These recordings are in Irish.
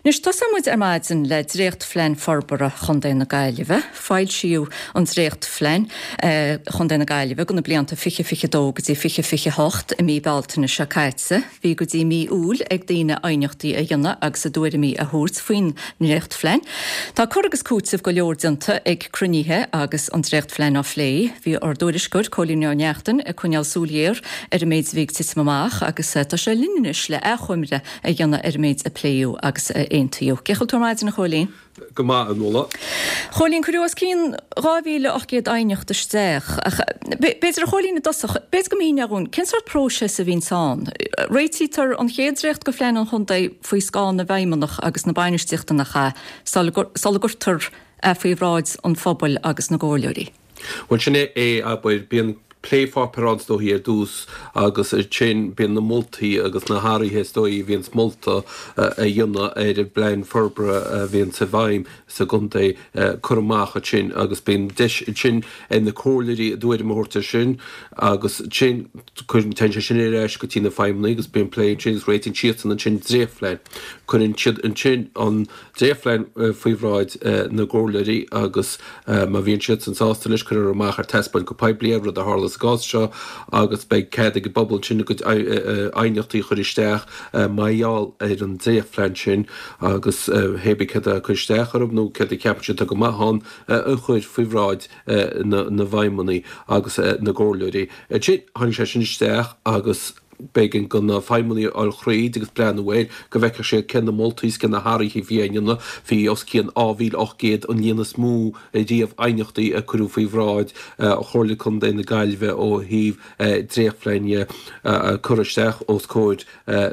Anois, tosóidh muid ar maidin le dréachtphlean forbartha Chontae na Gaillimhe. Foilsíodh an dréachtphlean Chontae na Gaillimhe do na blianta 2022 go dtí 2028 i mí Bealtaine seo caite. Bhí go dtí mí Iúil ag daoine aighneachtaí a dhéanamh agus a dtuairimí a thabhairt faoin ndréachtphlean. Tá cur agus cúiteamh go leor déanta ag cruinnithe agus an dréachtphlean á phlé. Bhí ár dtuairisceoir, Cóilín Ó Neachtain, ag coinneáil súil ghéar ar an méid a bhí ag titim amach agus tá sé linn anois le achoimre a dhéanamh ar an méid a pléadh agus a aontaíodh. Cén chaoi a bhfuil tú ar maidin, a Chóilín? Go maith, a Nuala. Chóilín, cuireadh os cionn 2,800 aighneacht isteach, ach b'fhéidir, a Chóilín, i dtosach, b'fhéidir go míneofá dhúinn, cén sórt próiseas a bhíonns ann? Réitítear an chéad dréacht de phlean an chontae faoi scáth na bhfeidhmeannach agus na bainistíochta nach ea, sula gcuirtear é faoi bhráid an phobail agus na gcomhairleoirí? Bhuel, sin é, abair, bíonn plépháipéar ann is dóichí ar dtús agus ansin bíonn na moltaí agus na hathruithe is dóichí a bhíonns molta a dhéanamh ar an bplean forbartha a bhíonns i bhfeidhm sa gcontae curtha amach ansin agus bíonn deis ansin ag na comhairleoirí a dtuairim a thabhairt air sin agus ansin cuireann, téann sé sin ar ais go dtí na feidhmeannaigh agus bíonn plé ansin agus réitíonn siadsan ansin dréachtphlean. Cuireann siad ansin an dréachtphlean faoi bhráid na gcomhairleoirí agus má bhíonn siadsan sásta leis, cuirfear amach ar taispeáint go poiblí é, rud a tharla sa gcás seo, agus beidh cead ag an bpobal ansin a gcuid aighneachtaí a chur isteach mar gheall ar an dréachtphlean sin agus hé bith céard a cur isteach orthu nó céard a cheapann siad atá go maith ann a chur faoi bhráid na bhfeidhmeannaigh agus na gcomhairleoirí. Ansin, tháinig sé sin isteach agus. B'éigean do na feidhmeannaigh a fháil thríd agus breathnú air go bhfeicfeadh siad cé na moltaí is cé na hathruithe a bhí á ndéanamh. Bhí os cionn 2,800, an líon is mó riamh aighneachtaí a cuireadh faoi bhráid Chomhairle Contae na Gaillimhe ó thaobh dréachtphlean dhe a curtha isteach os comhair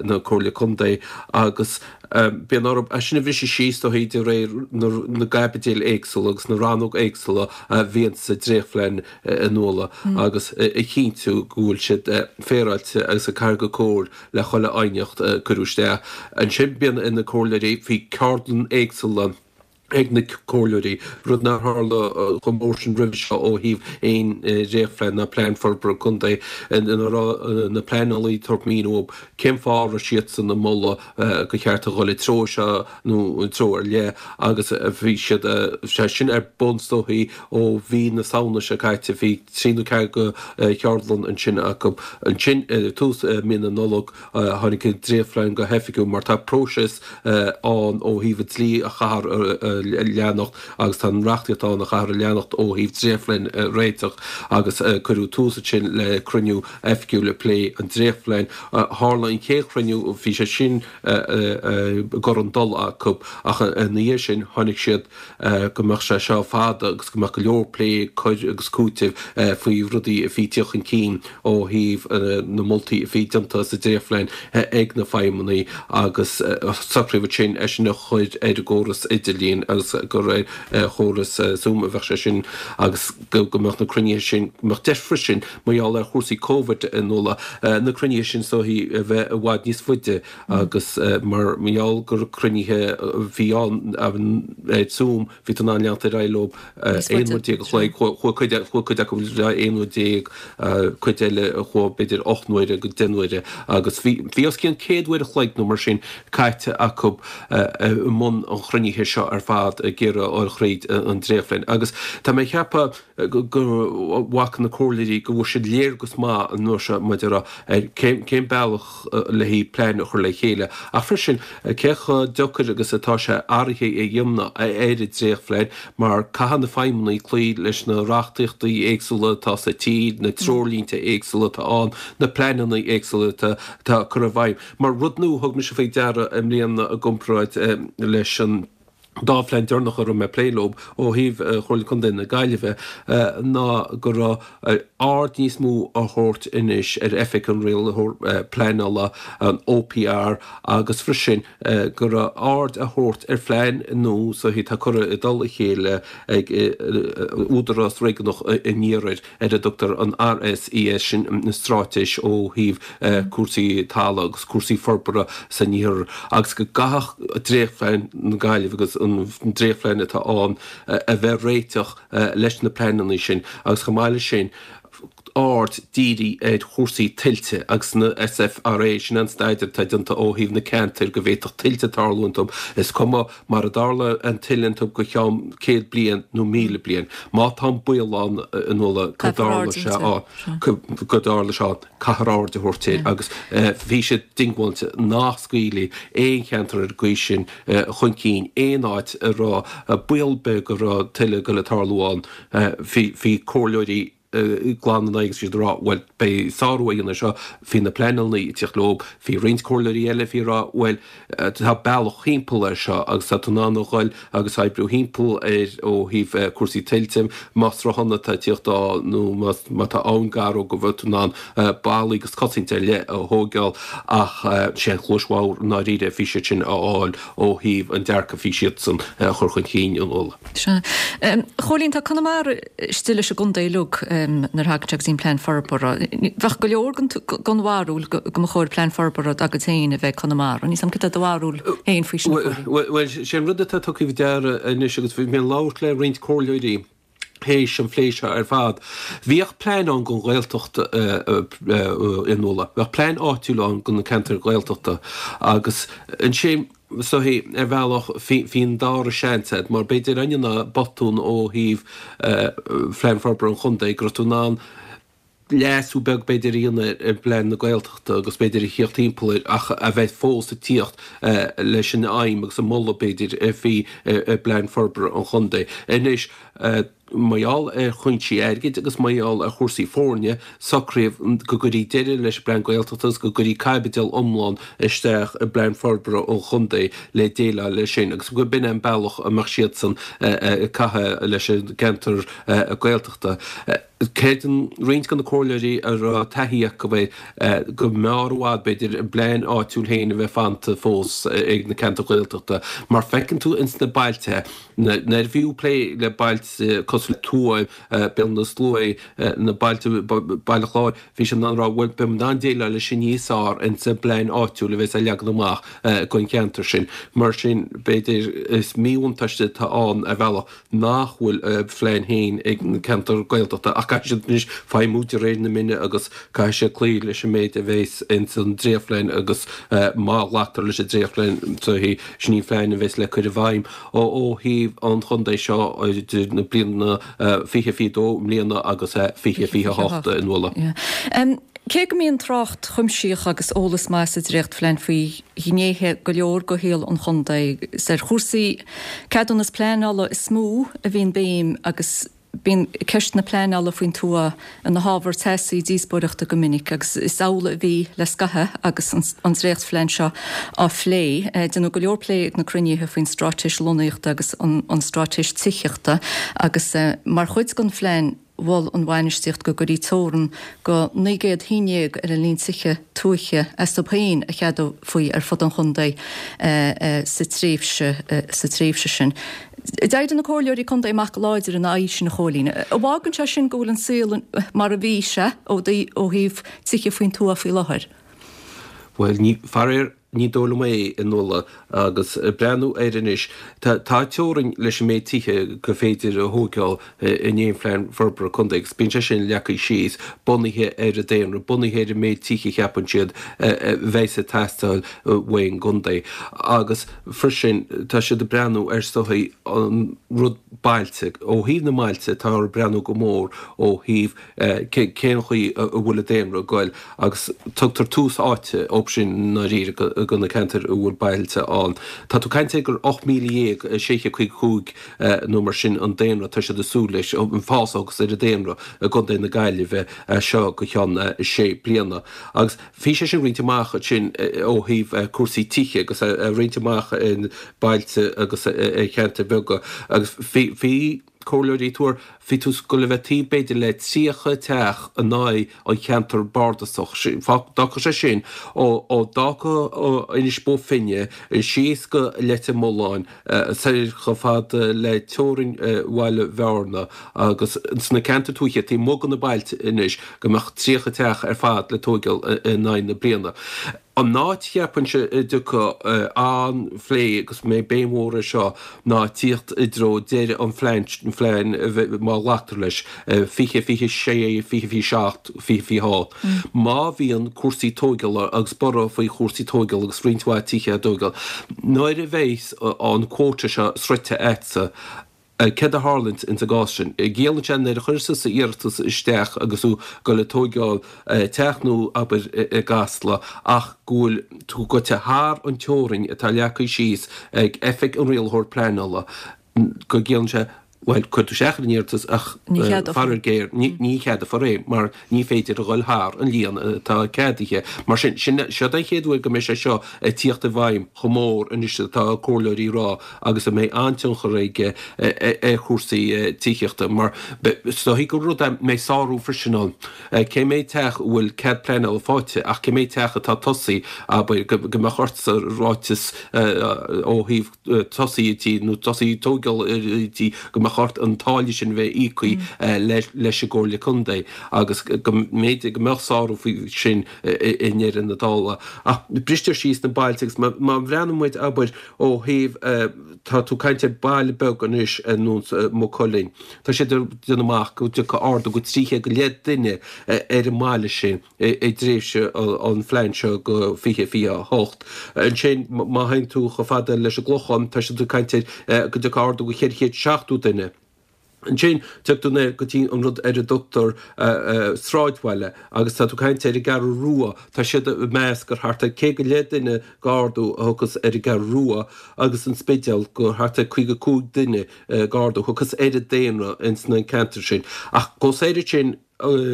na Comhairle Contae agus bíonn orthu é sin a bhriseadh síos is dóichí de réir na gcaibidil éagsúla agus na rannóg éagsúla a bhíonn sa dréachtphlean. a Nuala agus a chinntiú go bhfuil siad féaráilte agus ag cur go cóir le chuile aighneacht a cuireadh isteach. Ansin bíonn ar na comhairleoirí, bhí ceardlann éagsúla ag na comhairleoirí, rud nár tharla chomh mór sin roimhe seo ó thaobh aon dréachtphlean ná plean forbartha contae ina raibh na pleanálaí ag tabhairt míniú cén fáth a raibh siadsan ag moladh gur cheart a dhul i treo seo nó i treo ar leith agus bhí siad, sé sin ar bun is dóichí ó mhí na Samhna seo caite, bhí trí nó ceathair de cheardlann ansin acu. Ansin i tús mí na Nollag tháinig an dréachtphlean go hoifigiúil mar tá próiseas ann ó thaobh an dlí a chaithfear a leanacht agus tá an reachtaíocht ann a chaithfear a leanacht ó thaobh dréachtphlean a réiteach agus cuireadh tús ansin le cruinniú oifigiúil ag plé an dréachtphlean. Tharla an chéad chruinniú, bhí sé sin i gcur an dul acu ach ina dhiaidh sin tháinig siad go mbeadh sé seo fada agus go mbeadh go leor plé, cur agus cúitimh faoi rudaí a bhí ag tíocht chun cinn ó thaobh na moltaí a bhí déanta sa dréachtphlean ag na feidhmeannaigh agus socraíodh ansin é sin a chur ar an gcóras idirlín agus gur ar chóras Zoom a bheadh sé sin agus go mbeadh na cruinnithe sin, go mbeadh deis freisin mar gheall ar chúrsaí Covid a Nuala, na cruinnithe sin is dóichí a bheith i bhfad níos faide agus mar gheall gur cruinnithe a bhí ann ar Zoom bhí tú in ann leanacht ar aghaidh leo 11 uair a chloig, chuaigh cuid chuaigh cuid acu le 11 uair, cuid eile a chuaigh b'fhéidir 8 n-uaire go 10 n-uaire agus bhí bhí os cionn 100 uair a chloig nó mar sin caite acu i mbun an chruinnithe seo ar fad ag iarraidh a fháil thríd an dréachtphlean agus tá mé ag ceapadh go bhfaca na comhairleoirí go bhfuair siad léargas maith an uair seo maidir le ar cén bealach le haghaidh plean a chur le chéile ach freisin cé chomh deacair agus atá sé athruithe a dhéanamh ar an dréachtphlean mar caithfidh na feidhmeannaigh cloí leis na reachtaíochtaí éagsúla atá sa tír, na treoirlínte éagsúla atá ann, na pleananna éagsúla atá curtha i bhfeidhm. Mar rud nua a thug mise faoi deara i mbliana i gcomparáid leis an dá phlean deireanach a raibh mé ag plé leo ó thaobh Chomhairle Contae na Gaillimhe ná go raibh aird níos mó á thabhairt anois ar Oifig an Rialaitheoir Pleanála, an OPR, agus freisin go raibh aird á thabhairt ar phlean nua so atá curtha i dtoll a chéile ag Údarás Réigiúnach an Iarthair. ar a dtugtar an RSES, sin an straitéis ó thaobh cúrsaí talaimh agus cúrsaí forbartha san iarthar, agus go gcaithfeadh dréachtphlean na Gaillimhe agus an dréachtphlean atá ann a bheith réiteach leis na pleananna sin agus chomh maith leis sin. aird dírithe ar chúrsaí tuilte agus na SFRA, sin an staidéar atá déanta ó thaobh na ceantair go bhféadfadh tuilte tarlú iontu, is cuma mar a dtarla an tuile iontu go cheann 100 bliain nó 1,000 bliain. Má tá an baol ann a Nuala go dtarlóidh sé go dtarlóidh sé ann, caithfear aird a thabhairt air agus bhí siad diongbháilte nach scaoilfí aon cheantar ar an gcaoi sin chun cinn, aon áit a raibh baol beag go raibh tuile ag goil ag tarlú ann. Bhí comhairleoirí glan ina aghaidh agus bhí siad ag rá, bhuel, beidh sárú á dhéanamh air seo, bhí na pleanálaí ag tíocht leo, bhí roinnt comhairleoirí eile a bhí ag rá, bhuel, tá bealach thimpeall air seo agus tá tú in ann a dhul agus oibriú thimpeall air ó thaobh cúrsaí tuilte, más sruthán atá ag tíocht ann nó má tá abhainn gar dó go bhfuil tú in ann ballaí agus cosaint ar leith a thóigeáil ach sé an chluais bhodhar i ndáiríre a bhí siad sin a fháil ó thaobh an dearcadh a bhí siadsan a chur chun cinn a Nuala. Sea. A Chóilín, tá Conamara istigh leis an gcontae uilig nuair a thagann sé go dtí an plean forbartha. Bheadh go leor den bharúil go mba chóir plean forbartha dá gcuid féin a bheith ag Conamara. Níl 's a'm cad é do bharúil féin faoi sin, a Chóilín. Bhuel, sé an rud atá tugtha faoi deara anois agus bhí mé ag labhairt le roinnt comhairleoirí théis an phlé seo ar fad, bhíodh plean ann don Ghaeltacht a Nuala. Bheadh plean áitiúil ann do na ceantair Ghaeltachta agus ansin, So ar bhealach bhí an dara seans agat, mar b'fhéidir ainneoin botún ó thaobh Phlean Forbartha an Chontae go raibh tú in ann leasú beag b'fhéidir a dhéanamh ar phlean na Gaeltachta agus b'fhéidir a thíocht timpeall air ach a bheith fós ag tíocht leis an aidhm agus an moladh b'fhéidir a bhí i bPlean Forbartha an Chontae. Anois. Mar gheall ar chúinsí airgid agus mar gheall ar chúrsaí foirne, socraíodh go gcuirfí deireadh leis an bPlean Gaeltachta agus go gcuirfí caibidil iomlán isteach i bPlean Forbartha an Chontae le déileáil leis sin agus go b'in é an bealach a mbeadh siadsan ag caitheamh leis an gceantar Gaeltachta. Creideann roinnt de na comhairleoirí a raibh taithí acu air go mb'fhearr i bhfad, b'fhéidir, a bplean áitiúil féin a bheith fanta fós ag na ceantair Ghaeltachta mar feiceann tú ins na bailte, Nuair a bhíodh plé le bailte cosúil le Tuaim, Béal na Sluaighe, na bailte, Baile Chláir, bhí siad in ann a rá, bhuel, beidh muid in ann déileáil leis sin níos fearr ins an bplean áitiúil a bheas á leagan amach don cheantar sin. Mar sin, b'fhéidir, is míbhuntáiste atá ann ar bhealach nach bhfuil a phlean féin ag na ceantair Gaeltachta ach caithfidh siad anois feidhmiú de réir na mine agus caithfidh siad cloí leis an méid a bheas ins an dréachtphlean agus má ghlactar leis an dréachtphlean, sin í an phlean a bheas le cur i bhfeidhm. Ó thaobh an chontae seo idir na bliana 2022 i mbliana agus 2028 a Nuala. Cé go mbíonn trácht chuimsitheach agus eolas maith sa dréachtphlean faoi ghnéithe go leor de shaol an chontae, is ar chúrsaí ceadúnas pleanála is mó a bhíonn béim agus Bíonn ceist na pleanála faoin tuath ina hábhar teasaí díospóireachta go minic agus is amhlaidh a bhí le scaitheamh agus an dréachtphlean seo á phlé. Déanadh go leor plé ag na cruinnithe faoin straitéis lonnaíochta agus an straitéis tithíochta agus mar chuid den phlean mhol an bhainistíocht go gcuirfí teorann go 900 thigh ar an líon tithe tuaithe astu féin a cheadófaí ar fud an chontae sa tréimhse sa tréimhse sin. D'éirigh na comhairleoirí contae amach go láidir ina aghaidh sin, a Chóilín. An bhfágann sé sin go bhfuil an saol mar a bhí sé ó thaobh tithe faoin tuath faoi láthair? Bhuel, ní, faraor, ní dóigh liom é, a Nuala, agus breathnú air anois, tá teorainn leis an méid tithe gur féidir a thóigeáil in aon phlean forbartha contae agus bíonn sé sin leagtha síos bunaithe ar an daonra, bunaithe ar an méid tithe a cheapann siad a bheas ag teastáil uaidh an gcontae. Agus freisin tá siad ag breathnú ar is dóichí an rud bailte, ó thaobh na mbailte táthar ag breathnú go mór ó thaobh cén chaoi a bhfuil an daonra ag goil agus tugtar tús áite dóibh sin i ndáiríre do na ceantair a bhfuil bailte ann. Tá tú ag caint ar gur 18,655 nó mar sin an daonra atá siad ag súil leis, an fás agus ar an daonra i gContae na Gaillimhe as seo go ceann sé bliana. Agus bhí sé sin roinnte amach ansin ó thaobh cúrsaí tithe agus é roinnte amach i bailte agus i cheantair bheaga agus bhí comhairleoirí ag tuar, bhí tú ag goil a bheith taobh b'fhéidir le 30 teach in aghaidh an cheantar bardasach. D'fhágfadh sé sin ó d'fhágfadh Inis Bó Finne síos go Leitir Mealláin soir chomh fada le teorainn Bhaile Bhearna agus sna ceantair tuaithe taobh amuigh de na bailte anois go mbeadh 30 teach ar fad le tóigeáil in aghaidh na bliana. An áit cheapfainnse a dtiocfaidh an-phlé agus mbeidh béim mhór air seo ná tíocht i dtreo deireadh an phlean, phlean má ghlactar leis, 20, 26, 20, 27, 20, 28. Má bhíonn cúrsaí tóigeála agus borradh faoi chúrsaí tóigeála agus roinnt mhaith tithe á dtóigeáil, nuair a bheidh an quota seo sroichte agatsa, Céard a tharlaíonns ins an gcás sin? Ciallaíonn sé nuair a chuireas tusa iarratas isteach agus tú ag dul ag tóigeáil teach nua abair i gCasla ach go bhfuil tú goite thar an teorainn atá leagtha síos ag Oifig an Rialaitheoir Pleanála go gciallaíonn sé bhuel cuir tú isteach ar an iarratas ach faraor géar ní cheadófar é mar ní féidir a dhul thar an líon atá ceadaithe. Mar sin, sin, seod é an chéad uair go mbeidh sé seo ag tíocht i bhfeidhm chomh mór anois atá comhairleoirí ag rá agus a mbeidh an-tionchar aige ar chúrsaí tithíochta mar is dóichí gur rud é mbeidh sárú freisin ann. Cé mhéad teach a bhfuil cead pleanála faighte ach cé mhéad teach atá tosaithe, abair, go mbeadh ortsa ráiteas ó thaobh tosaí an tí nó tosaí tógáil an tí go mbeadh ort an táille sin a bheith íoctha leis an gComhairle Contae agus go mb'fhéidir go mbeadh sárú faoi sin i ndeireadh na dála. Ach bristear síos na bailte agus má bhreathnaíonn muid, abair, ó thaobh, tá tú ag caint ar baile beag anois ar nós Maigh Cuilinn, tá siad ag déanamh amach go dtiocfaidh ardú go 300 go leith duine ar an mbaile sin. i dtréimhse an phlean seo go 2028. Ansin, má théann tú chomh fada leis an gClochán, tá siad ag caint ar go dtiocfaidh ardú go 470 duine. Ansin, tiocfaidh tú go dtí an rud ar a dtugtar sráidbhaile agus tá tú ag caint ar an gCeathrú Rua, tá siad ag meas gur thart ar 100 go leith duine d'ardú a thiocfas ar an gCeathrú Rua agus an Spidéal gur thart ar 55 duine d'ardú a thiocfas ar an daonra ins na ceantair sin. Ach chomh soir ansin,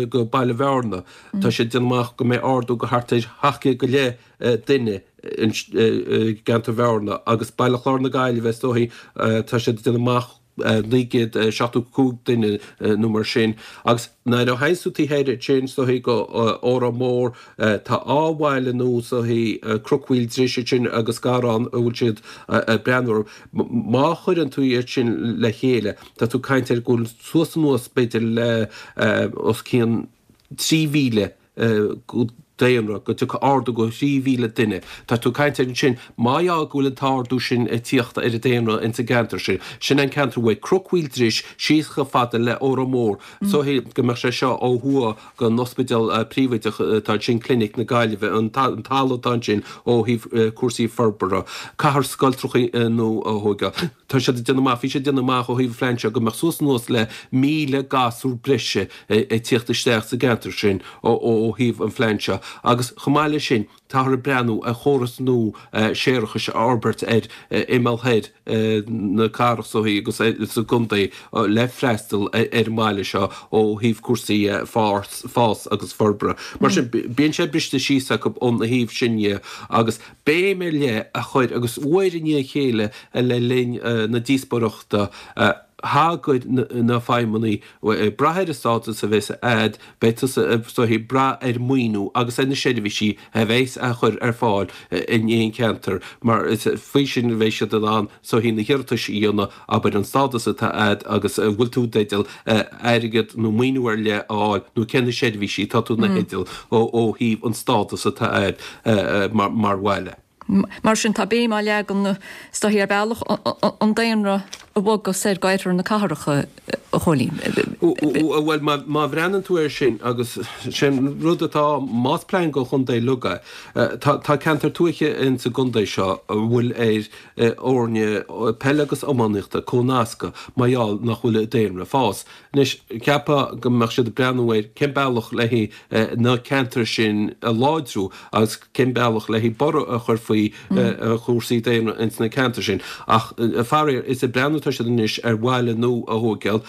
go Baile Bhearna. Tá siad ag déanamh amach go mbeidh ardú go thart ar 700 go leith duine i gceantar Bhearna agus Baile Chláir na Gaillimhe is dóichí tá siad ag déanamh amach 975 duine nó mar sin. Agus nuair a théanns tú taobh thoir ansin is dóichí go Órán Mór tá dhá bhaile nua is dóichí Cnoc Mhaoil Dris ansin agus Garrán a bhfuil siad ag breathnú orthu. Má chuireann tú iad sin le chéile tá tú ag caint ar go bhfuil suas anuas b'fhéidir le os cionn 3,000 daonra, go dtiocfaidh ardú go 3,000 duine. Tá tú ag caint ar ansin, má dheá go bhfuil an t-ardú sin ag tíocht ar an daonra ins an gceantar sin, sin an ceantar uaidh Cnoc Mhaoil Dris síos chomh fada le Órán Mór, is dóichí go mbeadh sé seo ó thuaidh den ospidéal príobháideach atá ansin, Clinic na Gaillimhe, an talamh atá ansin ó thaobh cúrsaí forbartha, cathair scoiltrachaí nua a thóigeáil. Tá siad ag déanamh amach, bhí siad ag déanamh amach ó thaobh an phlean seo go mbeadh suas anuas le 1,000 gasúr breise ag tíocht isteach sa gceantar sin ó thaobh an phlean seo agus chomh maith leis sin táthar ag breathnú ar chóras nua séarachais a fhorbairt ar imeall thoir na cathrach so agus sa gcontae le freastal ar an mbaile seo ó thaobh cúrsaí fás agus forbartha. Mar sin bíonn sé briste síos acu ón thaobh sin dhe agus béim ar leith a chur, agus uair i ndiaidh a chéile le linn na díospóireachta, thagair na feidhmeannaigh, ag brath ar an stádas a bheas a'd, beidh tusa is dóichí ag brath ar maoiniú agus ar na seirbhísí a bheas á chur ar fáil in aon cheantar, mar is faoi sin a bheidh siad in ann is dóichí na hiarratais a dhéanamh, abair an stádas atá a'd agus an bhfuil tú i dteideal airgead nó maoiniú ar leith a fháil nó cé na seirbhísí atá tú ina theideal ó thaobh an stádas atá a'd mar bhaile. Mar sin tá béim á leagan is dóichí ar bhealach an daonra a bhogadh soir go oirthear na cathrach, a Chóilín. Bhuel, má bhreathnaíonn tú air sin agus sin rud atá, más plean go chontae uilig é, tá ceantar tuaithe ins an gcontae seo a bhfuil ar fhoirne peile agus iománaíochta comhnascadh mar gheall nach bhfuil an daonra ag fás. Anois, cheapfá go mbeadh siad ag breathnú ar cén bealach le haghaidh na ceantair sin a láidriú agus cén bealach le haghaidh borradh a chur faoi chúrsaí daonra ins na ceantair sin. Ach faraor, is ag breathnú atá siad anois ar bhaile nua a thóigeáil.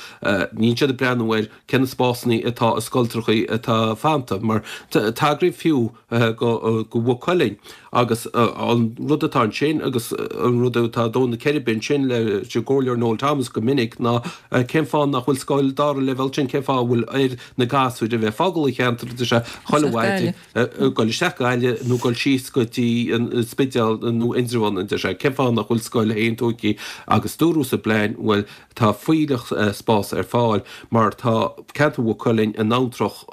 Níl siad ag breathnú ar cé na spásanna atá i scoiltrachaí atá fanta, mar tagraíodh fiú go Mhaigh Cuilinn agus an rud atá ansin agus an rud atá ag dó na ceirbe ansin leis an gComhairleoir Noel Thomas go minic ná cén fáth nach bhfuil scoil dara leibhéal ansin, cén fáth a bhfuil ar na gasúir a bheith ag fágáil an cheantair, tá sé chuile mhaidin ag dul isteach Gaillimh nó dul síos go dtí an. Spidéal nó Indreabhán, a deir sé, cén fáth nach bhfuil scoil féin tóigthe agus dúradh sa bplean, bhuel, tá fuílleach spás ar fáil mar tá ceantar Mhaigh Cuilinn in abhantrach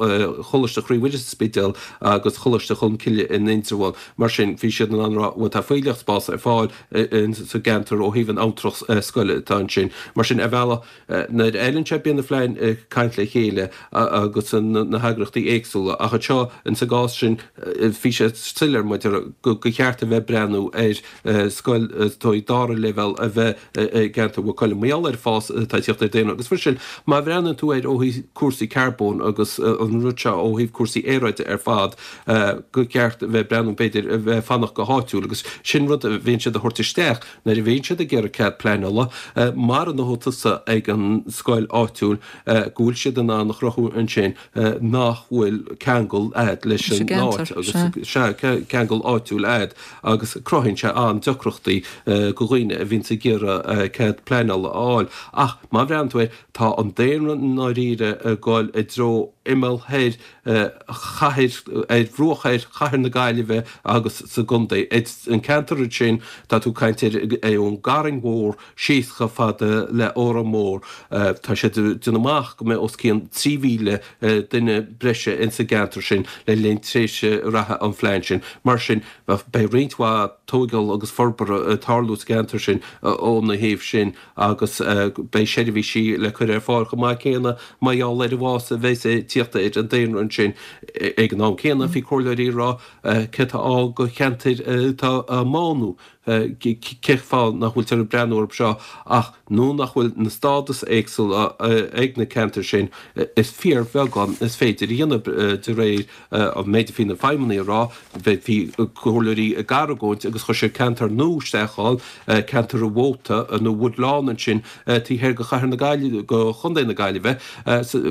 Choláiste Chroí Mhuire sa Spidéal agus Choláiste Cholmcille in Indreabhán. Mar sin, bhí siad in ann a rá, bhuel, tá fuílleach spás ar fáil sa gceantar ó thaobh an abhantrach scoile atá ansin. Mar sin, ar bhealach, Nuair a fheileann sé bíonn na plein ag caint le chéile agus na heagraíochtaí éagsúla ach anseo in sa gcás sin bhí sé soiléir maidir go cheart a bheith ag breathnú ar scoil dóigh dara leibhéal a bheith i gceantar Mhaigh Cuilinn. Mar gheall ar an fás atá ag teacht ar daonra agus freisin má bhreathnaíonn tú air ó thaobh cúrsaí carbóin agus an rud seo ó thaobh cúrsaí aeráide ar fad go ceart a bheith ag breathnú b'fhéidir a bheith ag fanacht go háitiúil agus sin rud a bhíonn siad a thabhairt isteach Nuair a bhíonn siad ag iarraidh cead pleanála, mara ndóthaigh tusa ag an scoil áitiúil go bhfuil siad in ann a chruthú ansin nach bhfuil ceangal a'd leis an áit agus sea, ceangal áitiúil a'd agus cruthaíonn sé an-deacrachtaí go dhaoine a bhíonns ag iarraidh cead pleanála a fháil. Ach má bhreathnaíonn tú air, tá an daonra i ndáiríre ag dul i dtreo imeall thoir chathair, ar bhruach thoir chathair na Gaillimhe agus sa gcontae. An ceantar ansin, tá tú ag caint air ón gCarraig Mhór síos chomh fada le Órán Mór. Tá siad ag déanamh amach go mbeidh os cionn 3,000 duine breise ins an gceantar sin le linn tréimhse reatha an phlean sin. Mar sin, beidh roinnt mhaith tóigeáil agus forbartha ag tarlú sa gceantar sin óna thaobh sin. agus beidh seirbhísí le cur ar fáil chomh maith céanna mar gheall ar an bhfás a bheas ag tíocht ar an daonra ansin. Ag an am céanna, bhí comhairleoirí ag rá céard atá ann do cheantair atá á mbánú, cén fáth nach bhfuiltear ag breathnú orthu seo ach nuair nach bhfuil na stádas éagsúla ag na ceantair sin, is fíorbheagán is féidir a dhéanamh de réir an méid a bhí na feidhmeannaigh a rá, bhí comhairleoirí ag argóint agus chuir siad ceantar nua isteach ann, ceantar an Mhóta nó Woodlawn ansin taobh thoir de chathair na Gaillimhe, de chontae na Gaillimhe.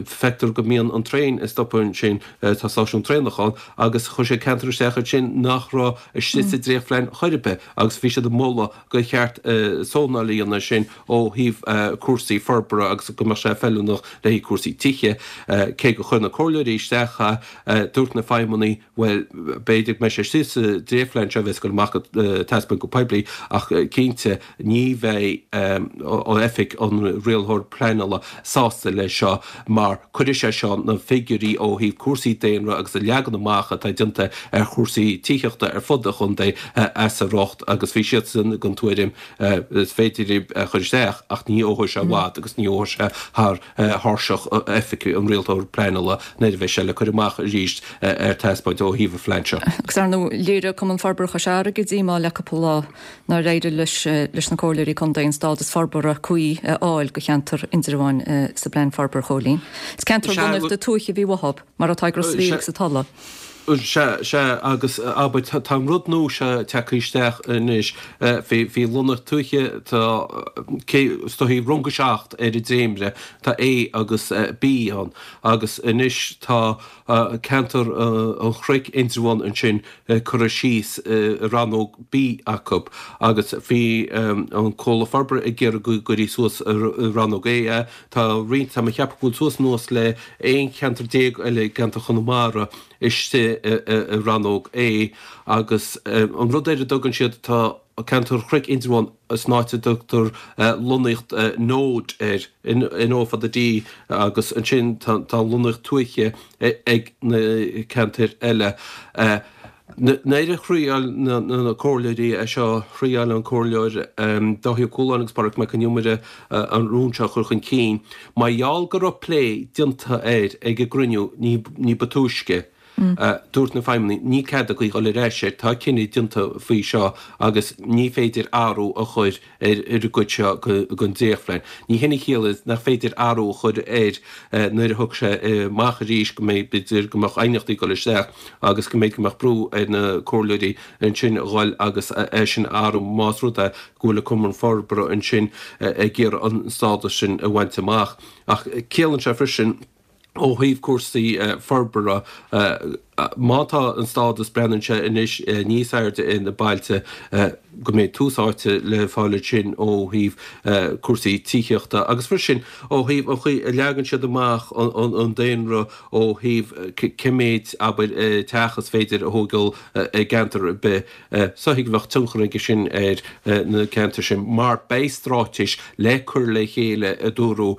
Feictear go mbíonn an traein ag stopadh ansin, tá stáisiún traenach ann, agus chuir siad ceantar isteach ansin nach raibh istigh sa dréachtphlean chor ar bith agus bhí siad ag moladh gur cheart zónáil a dhéanamh ansin ó thaobh cúrsaí forbartha agus go mbeadh sé feiliúnach le haghaidh cúrsaí tithe. Cé gur chuir na comhairleoirí isteach é, dúirt na feidhmeannaigh, bhuel, b'fhéidir go mbeidh sé istigh sa dréachtphlean seo a bheas ag dul amach ag taispeáint go poiblí ach cinnte ní bheidh oifig an rialthóir pleanála sásta leis seo mar cuirfidh sé seo na figiúirí ó thaobh cúrsaí daonra agus an leagan amach atá déanta ar chúrsaí tithíochta ar fud an chontae as a riocht agus bhí siadsan den tuairim is féidir é a chur isteach ach ní fheolfaidh sé i bhfad agus ní fheolfaidh sé thar thairseach oifig an rialtóir pleanála nuair a bheidh sé le cur amach arís ar taispeáint ó thaobh an phlean seo. Agus ar ndóigh, léirigh Cumann Forbartha Chois Fharraige díomá le cúpla lá nár éirigh leis leis na comhairleoirí contae an stádas forbartha cuí a fháil do cheantar Indreabháin sa bplean forbartha, Chóilín. Is ceantar lonnaíochta tuaithe a bhí uathu, mar atá ag Ros a' Mhíl agus an Tulaigh. Sea, sea, agus abair, tá an rud nua seo tagtha isteach anois faoi lonnaíocht tuaithe, tá, cé, is dóichí rang a 7 ar an dréimire, tá A agus B ann, agus anois tá ceantar an Chnoic, Indreabhán ansin curtha síos i rannóg B acu agus bhí an Comhlacht Forbartha ag iarraidh go gcuirfí suas i rannóg A é. Tá roinnt, tá mé ag ceapadh go bhfuil suas anuas le 11 cheantar eile i gceantar Chonamara istigh i rannóg A agus an rud ar a dtugann siad, tá ceantar Chnoic Indreabhán san áit a dtugtar lonnaíocht Node air, N O fada D, agus ansin tá lonnaíocht tuaithe ag na ceantair eile. Nuair a thriáil na comhairleoirí é seo, thriáil an Comhairleoir Dáithí Ó Cualáin agus Pádraig Mac Con Iomaire an rún seo a chur chun cinn. Mar gheall go raibh plé déanta air ag an gcruinniú ní ba túisce, Dúirt na feidhmeannaigh, níl cead againn dhul ar ais air, tá cinneadh déanta faoi seo agus ní féidir athrú a chur ar an gcuid seo den dréachtphlean. Ní hin a chiallaíonn nach féidir athrú a chur air nuair a thiocfaidh sé amach arís, go mbeidh, b'fhéidir go mbeadh aighneachtaí ag dul isteach agus go mbeidh, go mbeadh brú ar na comhairleoirí ansin a dhul agus é sin a athrú más rud é go bhfuil an Cumann Forbartha ansin ag iarraidh an stádas sin a bhaint amach. Ach ciallaíonn sé freisin, ó thaobh cúrsaí forbartha. Má tá an stádas, breathnaíonn sé anois, níos airde ar na bailte, go mbeidh tús áite le fáil ansin ó thaobh cúrsaí tithíochta agus freisin ó thaobh an chaoi a leagann siad amach an daonra ó thaobh cé méid, abair, teach is féidir a thógáil i gceantar ar bith. Is dóichí go mbeadh tionchar aige sin ar na ceantair sin mar beidh stráitéis le cur le chéile a dúradh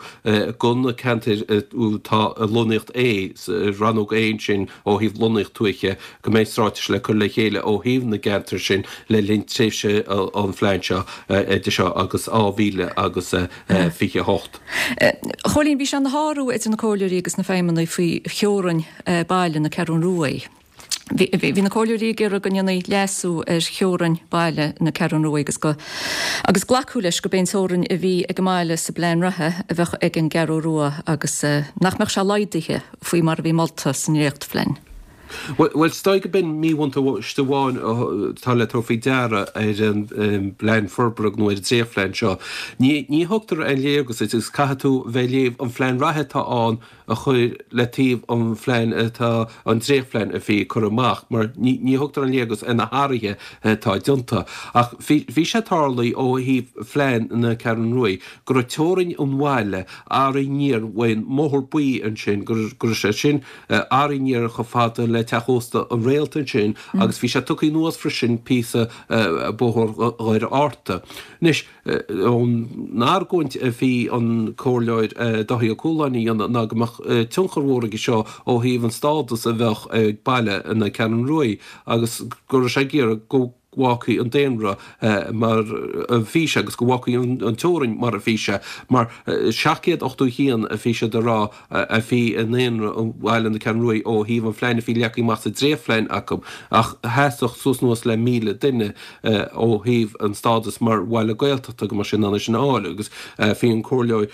do na ceantair atá i lonnaíocht A, rannóg A ansin ó thaobh lonnaíocht tuaithe, go mbeidh stráitéis le cur le chéile ó thaobh na gceantar sin le linn tréimhse an phlean seo idir seo agus 2028. A Chóilín, bhí sé ina shárú idir na comhairleoirí agus na feidhmeannaigh faoi theorainn baile na Ceathrún Ruaidh. Bhí na comhairleoirí ag iarraidh go ndéanfaí leasú ar theorainn baile na Ceathrún Ruaidh agus go agus glacadh leis gurb é an teorainn a bhí ag an mbaile sa bplean reatha a bheadh ag an gCeathrú Rua agus nach mbeadh sé laghdaithe faoi mar a bhí molta sa ndréachtphlean. Bhuel, is dóigh go b'in míbhuntáiste amháin atá le tabhairt faoi deara ar an bplean forbartha nó ar an dréachtphlean seo. Ní thugtar aon léargas duit agus caithfidh tú bheith ag léamh an phlean reatha atá ann a chur le taobh an phlean atá, an dréachtphlean a bhí curtha amach, mar ní thugtar an léargas ar na hathruithe atá déanta. Ach bhí sé tarlaithe ó thaobh phlean na Ceathrún Ruaidh go raibh teorainn an bhaile athraithe aniar uaidh an mBóthar Buí ansin, go raibh sé sin athraithe aniar chomh fada le teach ósta an Réalt ansin agus bhí sé tugtha anuas freisin píosa Bóthar Dhoire Fhearta. Anois. An argóint a bhí an Comhairleoir Dáithí Ó Cualáin a dhéanamh ná go mbeadh tionchar mhór aige seo ó thaobh an stádas a bheadh ag baile na Ceathrún Ruaidh agus go raibh sé ag iarraidh go bhfágfaí an daonra mar a bhí sé agus go bhfágfaí an teorainn mar a bhí sé mar 781 a bhí siad a rá a bhí i ndaonra bhaile na Ceathrún Ruaidh ó thaobh an phlean a bhí leagtha amach sa dréachtphlean acu ach theastódh suas anuas le 1,000 duine ó thaobh an stádas mar bhaile Gaeltachta go mbeadh sé in ann é sin a fháil agus bhí an Comhairleoir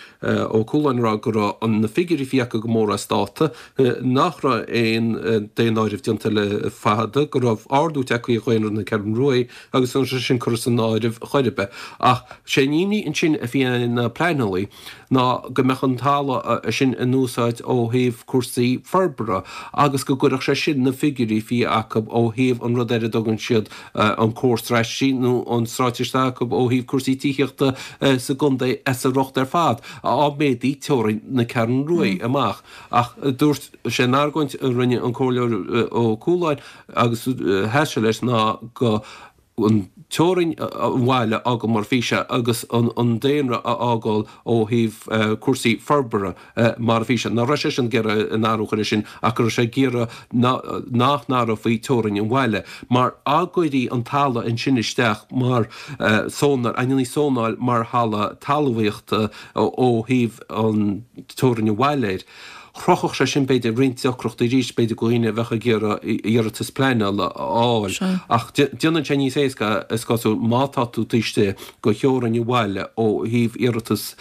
Ó Cualáin ag rá go raibh na figiúirí a bhí acu go mór as dáta, nach raibh aon daonáireamh déanta le fada, go raibh ardú tagtha ar dhaonra na Ceathrún Ruaidh agus an raibh sé sin curtha san áireamh chor ar bith. Ach sé an imní ansin a bhí ar na pleanálaí ná go mbeadh an talamh sin in úsáid ó thaobh cúrsaí forbartha agus go gcuirfeadh sé sin na figiúirí a bhí acu ó thaobh an rud ar a dtugann siad an comhar straitéisí nó an straitéis atá acu ó thaobh cúrsaí tithíochta sa gcontae as a riocht ar fad dá méadaí teorainn na Ceathrún Ruaidh amach. Ach dúirt sé an argóint a rinne an Comhairleoir Ó Cualáin agus sheas sé leis ná go an teorainn an bhaile a fhágáil mar a bhí sé agus an daonra a fhágáil ó thaobh cúrsaí forbartha mar a bhí sé. Nach raibh seisean ag iarraidh aon athrú a chur air sin ach go raibh sé ag iarraidh nach n-athrófaí teorainn an bhaile mar dá gcuirí an talamh ansin isteach mar zónáil, a ndéanfaí zónáil mar thalamh talmhaíochta ó thaobh an teorainn an bhaile air. Chruthódh sé sin, b'fhéidir, roinnt deacrachtaí arís, b'fhéidir, do dhaoine a bheadh ag iarraidh iarratas pleanála a fháil. Ach déanann sé níos éasca, is cosúil, má tá tú taobh istigh de theorainn an bhaile ó thaobh iarratas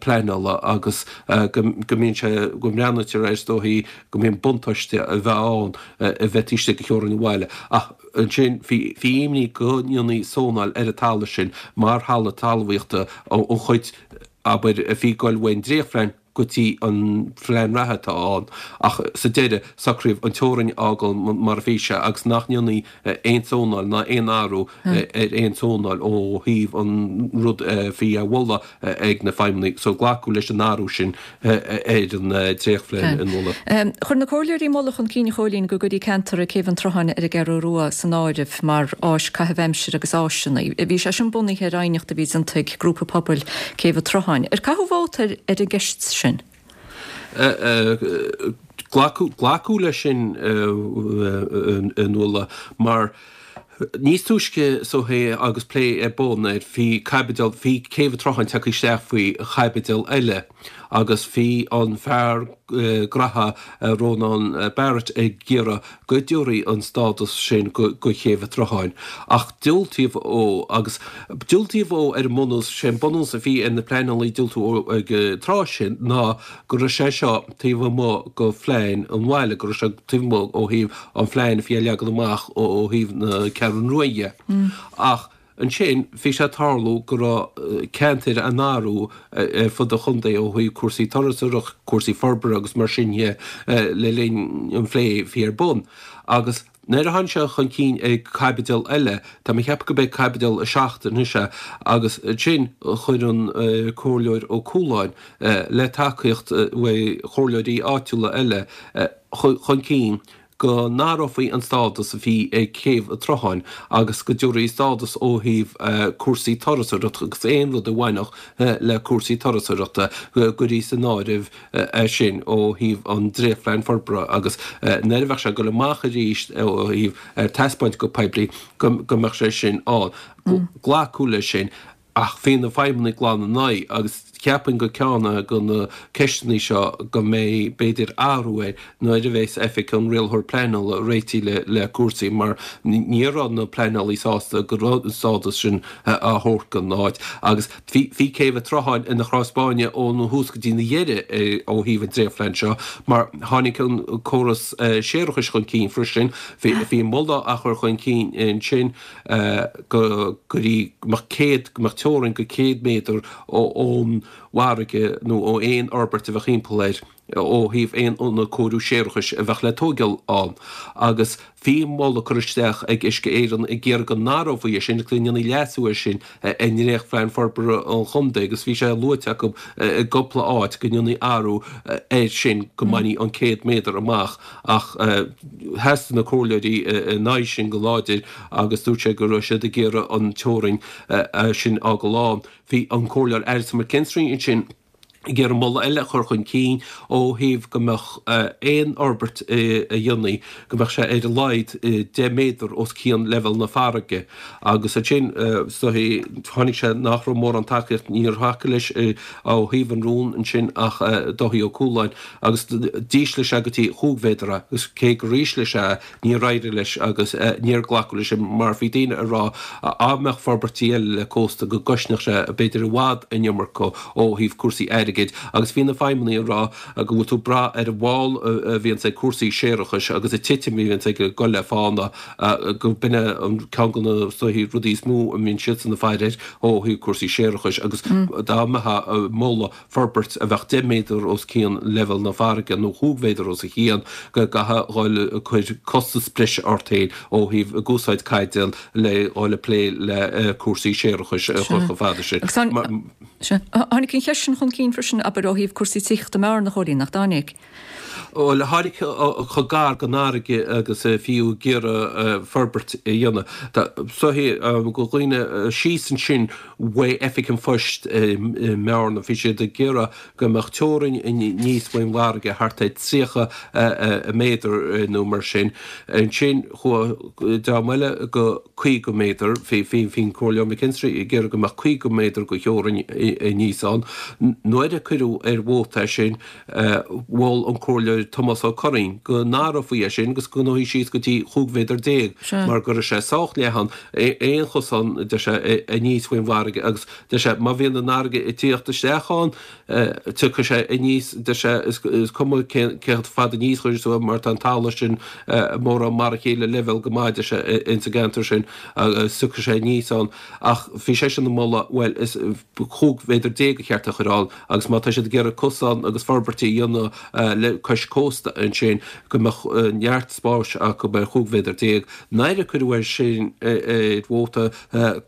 pleanála agus go mbíonn sé, go mbreathnaítear air, is dóichí, go mbíonn buntáiste a bheith ann a bheith taobh istigh de theorainn an bhaile. Ach ansin, bhí imní go ndéanfaí zónáil ar an talamh sin mar thalamh talmhaíochta, an chuid, abair, a bhí ag goil uaidh an dréachtphlean go dtí an phlean reatha atá ann ach sa deireadh socraíodh an teorainn a fhágáil mar a bhí sé agus nach ndéanfaí aon zónáil ná aon athrú ar aon zónáil ó thaobh an rud a bhí á mholadh ag na feidhmeannaigh so glacadh leis an athrú sin ar an dréachtphlean a moladh. Chuir na comhairleoirí moladh chun cinn a Chóilín go gcuirí ceantar ag Céibh an tSrutháin ar an gCeathrú Rua san áireamh mar áis caitheamh aimsire agus áiseanna. Bhí sé sin bunaithe ar aighneacht a bhí déanta ag grúpa pobail Céibh an tSrutháin. Ar caitheadh vóta ar an gceist sin? Glacadh, glacadh leis sin a Nuala mar níos túisce so é agus plé ar bun air bhí caibidil, bhí Céibh an tSrutháin tagtha isteach faoi chaibidil eile agus bhí an fear graithe Rónán Barrett ag iarraidh go dtabharfaí an stádas sin go Céibh an tSrutháin. Ach diúltaíodh ó agus diúltaíodh ó ar an mbunús, sé an bunús a bhí ar na pleanálaí diúltú ó ag an tráth sin ná go raibh sé seo taobh amuigh go phlean an bhaile, go raibh sé taobh amuigh ó thaobh an phlean a bhí á leagan amach ó thaobh na Ceathrún Rua dhe. Ach. Ansin bhí sé ag tarlú go raibh ceantair á n-athrú ar fud an chontae ó thaobh cúrsaí turasóireachta, cúrsaí forbartha agus mar sin dhe le linn an phlé a bhí ar bun. Agus nuair a tháinig sé chun cinn ag caibidil eile, tá mé ag ceapadh go b'é caibidil 7 anois é, agus ansin chuir an Comhairleoir Ó Cualáin, le tacaíocht uaidh chomhairleoirí áitiúla eile, chun cinn go n-athrófaí an stádas a bhí ag Céibh an tSrutháin agus go dtabharfaí stádas ó thaobh cúrsaí turasóireachta agus aon rud a bhainfeadh le cúrsaí turasóireachta go gcuirfí san áireamh é sin ó thaobh an dréachtphlean forbartha agus nuair a bheadh sé ag dul amach arís ó thaobh ar taispeáint go poiblí go mbeadh sé sin ann. Glacadh leis sin. Ach bhí na feidhmeannaigh glan ina aghaidh agus cheapfainn gur ceann de na ceisteanna seo go mbeidh b'fhéidir athrú air nuair a bheas Oifig an Rialaitheoir Pleanála réitithe le cúrsaí mar ní raibh na pleanálaí sásta go raibh an stádas sin á thabhairt don áit agus bhí Céibh an tSrutháin ina chros báine ón thús go dtí an deireadh ó thaobh an dréachtphlean seo mar tháinig an córas séarachais chun cinn freisin bhí moladh á chur chun cinn ansin go gcuirfí, go mbeadh 100, go mbeadh teorainn go 100 méadar ón bhfarraige nó ó aon fhorbairt a bheadh thimpeall air ó thaobh aon ionad cóiriú séarachais a bheadh le tóigeáil ann. Agus bhí moladh curtha isteach ag Uisce Éireann ag iarraidh go n-athrófaí é sin agus go ndéanfaí leasú air sin i ndréachtphlean forbartha an chontae agus bhí sé luaite acu i gcúpla áit go ndéanfaí athrú air sin go mbainfí an 100 méadar amach ach sheas na comhairleoirí ina aghaidh sin go láidir agus dúirt sé go raibh siad ag iarraidh an teorainn sin a fhágáil ann. Bhí an Comhairleoir Alison McKinstry ansin ag iarraidh moladh eile a chur chun cinn ó thaobh go mbeadh aon fhorbairt a dhéanfaí, go mbeadh sé ar a laghad 10 méadar os cionn leibhéal na farraige. Agus ansin, is dóichí, tháinig sé nach raibh mórán tacaíocht, níor thacaigh leis ó thaobh an rún ansin ach Dáithí Ó Cualáin agus d'ísligh sé go dtí chúig mhéadar é agus cé gur ísligh sé é, Níor éirigh leis agus níor glacadh leis mar bhí daoine ag rá dá mbeadh forbairtí eile le cósta go gcosnódh sé b'fhéidir i bhfad an iomarca ó thaobh cúrsaí airgid agus bhí na feidhmeannaigh ag rá go bhfuil tú ag brath ar an bhfál a bhíonns ag cúrsaí séarachais agus an titim a bhíonns ag dul le fána go b'in é an ceann de na rudaí is mó a mbíonn siadsan ag faire air ó thaobh cúrsaí séarachais agus dá mbeifeá ag moladh forbairt a bheadh 10 méadar os cionn leibhéal na farraige nó chúig mhéadar os a chionn, go gcaithfeá dhul ag cur costas breise ort féin ó thaobh ag úsáid caidéal le dhul ag plé le cúrsaí séarachais a chur chomh fada sin. Sea. Tháinig an cheist sin chun cinn freisin, abair, ó thaobh cúrsaí tithíochta i mBearna, a Chóilín, nach dtáinig? Bhuel, tháinig chomh gar don fharraige agus a fiú ag iarraidh forbairt a dhéanamh. Is dóichí go dhaoine síos ansin uaidh Oifig an Phoist i mBearna, bhí siad ag iarraidh go mbeadh teorainn aníos faoin bhfarraige thart ar 30 méadar nó mar sin. Ansin chuaigh dream eile go 50 méadar, bhí an Comhairleoir McKinstry ag iarraidh go mbeadh 50 méadar de theorainn aníos ann. Nuair a cuireadh ar vóta é sin, Mhol an Comhairleoir Tomás Ó Curraoin go n-athrófaí é sin agus go ngabhfaí síos go dtí 15 mhéadar mar go raibh sé sách leathan, aon chosán, deir sé, aníos faoin bhfarraige agus deir sé, má bhíonn an fharraige ag tíocht isteach ann, tiocfaidh sé aníos, deir sé, is cuma cé chomh fada aníos a chuirfeas tú é mar tá an talamh sin mórán mar a chéile leibhéal go maith, deir sé, ins an gceantar sin agus tiocfaidh sé aníos ann. Ach bhí seisean ag moladh, bhuel, is 15 mhéadar ba cheart a chur ann agus má tá siad ag iarraidh cosán agus forbairtí a dhéanamh le cois cósta ansin go mbeadh neart spáis acu ar 15 mhéadar. Nuair a cuireadh é sin ar vóta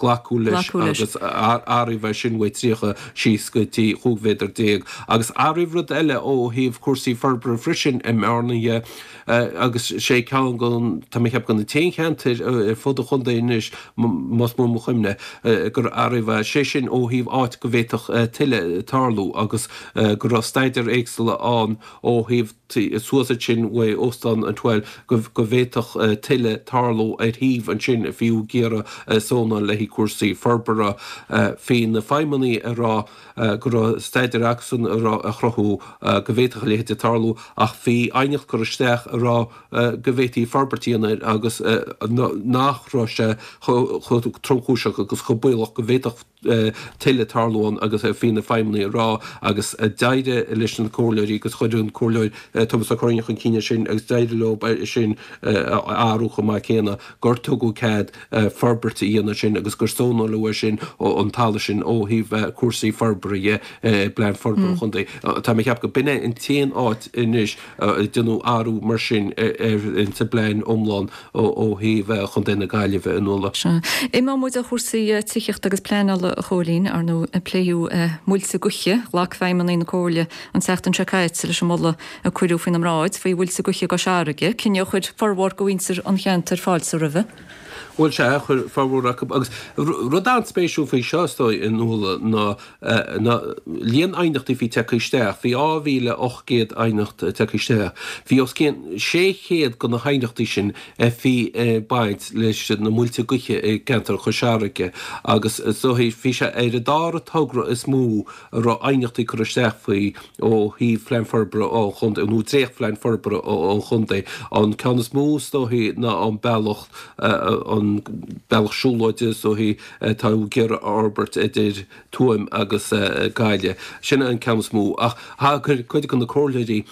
glacadh leis agus athraíodh é sin uaidh 30 síos go dtí 15 mhéadar. Agus athraíodh rud eile ó thaobh cúrsaí forbartha freisin i mBearna dhe. Agus sé ceann den, tá mé ag ceapadh de na t-aon cheantair ar fud an chontae anois, más buan mo chuimhne, gur athraíodh é, sé sin ó thaobh áit go bhféadfadh tuile tarlú agus go raibh staidéir éagsúla ann ó thaobh suas ansin uaidh Óstán an Twelve go bhféadfadh tuile tarlú ar shuíomh ansin fiú ag iarraidh zónáil le haghaidh cúrsaí forbartha. Bhí na feidhmeannaigh ag rá go raibh staidéir acusan a raibh ag cruthú go bhféadfadh a leithéid tarlú ach bhí aighneacht curtha isteach ag rá go bhféadfaí forbairt a dhéanamh air agus nach raibh sé chomh tromchúiseach agus chomh baolach go bhféadfadh tuile tarlú ann agus bhí na feidhmeannaigh ag rá agus d'éirigh leis na comhairleoirí agus chuir an comhairleoir. Tomás Ó Curraoin chun cinn ansin agus d'éirigh leo é sin a athrú chomh maith céanna, gur tugadh cead forbairt a dhéanamh ansin agus gur zónáladh é sin, an talamh sin ó thaobh cúrsaí forbartha dhe i bPlean Forbartha an Chontae. Tá mé ag ceapadh go b'in é an t-aon áit anois a déanadh athrú mar sin ar sa bplean iomlán ó thaobh Chontae na Gaillimhe, a Nuala. Sea. Imeoidh muid ó chúrsaí tithíochta agus pleanála, a Chóilín. Ar ndóigh, pléadh muilte gaoithe. Ghlac feidhmeannaigh na Comhairle an tseachtain seo caite leis an moladh a cuireadh faoina mbráid faoi mhuilte gaoithe i gCois Fharraige, cinneadh a chuir formhór de mhuintir an cheantair fáilte roimhe. Bhuel, sea, chuir formhór acu. Agus rud an-spéisiúil faoi seo, is dóigh, a Nuala, ná ná líon aighneachtaí a bhí tagtha isteach. Bhí 2,800 aighneacht tagtha isteach. Bhí os cionn 600 de na haighneachtaí sin a bhí ag baint leis na muilte gaoithe i gceantar Chois Fharraige agus is dóigh bhí sé ar an dara togra is mó a raibh aighneachtaí curtha isteach faoi ó thaobh Phlean Forbartha an Chontae, nó Dréacht-Phlean Forbartha an Chontae. An ceann is mó is dóichí ná an bealach, an bealach siúlóide is dóichí atá ag iarraidh a fhorbairt idir Tuaim agus Gaillimh. Sin an ceann is mó. Ach thagair cuid de na comhairleoirí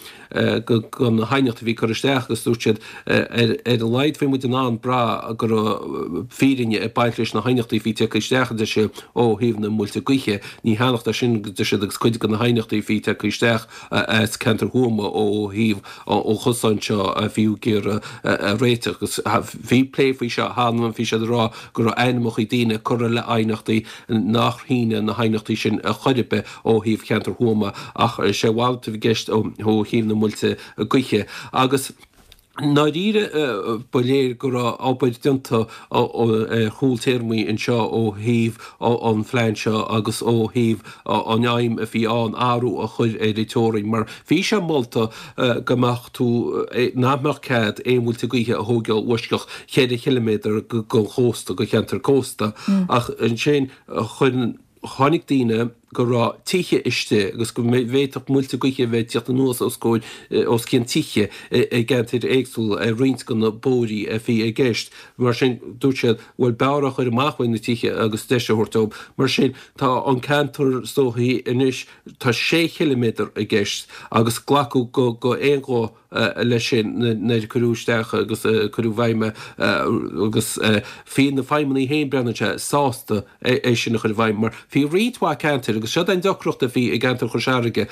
do na haighneachtaí a bhí curtha isteach agus dúirt siad ar a laghad bhí muid in ann brath go raibh fírinne ag baint leis na haighneachtaí a bhí tagtha isteach, a deir siad, ó thaobh na muilte gaoithe. Ní thaitneodh sin, a deir siad, agus cuid de na haighneachtaí a bhí tagtha isteach as ceantar Thuama ó thaobh an chosáin seo a bhí ag iarraidh a réiteach. Agus bhí plé faoi seo cheana, bhí siad ag rá go raibh ainmneacha daoine curtha le aighneachtaí nach shine na haighneachtaí sin ar chor ar bith ó thaobh cheantar Thuama ach is é a mhalairt a bhí i gceist ó thaobh na muilte gaoithe. Agus i ndáiríre ba léir go raibh obair déanta ar chúl téarmaí anseo ó thaobh an phlean seo agus ó thaobh an aidhm a bhí ann athrú a chur ar an teorainn mar bhí sé molta go mbeadh tú, nach mbeadh cead aon mhuilte gaoithe a thógáil uaisceach cheithre chiliméadar den chósta, de cheantar cósta ach ansin chuir, chonaic daoine go raibh tithe istigh agus go bhféadfadh muilte gaoithe a bheith ag tíocht anuas os comhair, os cionn tithe i gceantair éagsúla ar roinnt de na bóithrí a bhí i gceist. Mar sin, dúirt siad, bhuel, b'fhearr a chur amach uaidh na tithe agus deis a thabhairt dóibh. Mar sin, tá an ceantar is dóichí anois, tá sé chiliméadar i gceist agus glacadh go aon ghuth leis sin nuair a cuireadh isteach agus cuireadh i bhfeidhm é agus bhí na feidhmeannaigh féin, breathnaíonn sé, sásta é sin a chur i bhfeidhm mar bhí roinnt mhaith ceantair agus seo an deacracht a bhí i gceantar Chois Fharraige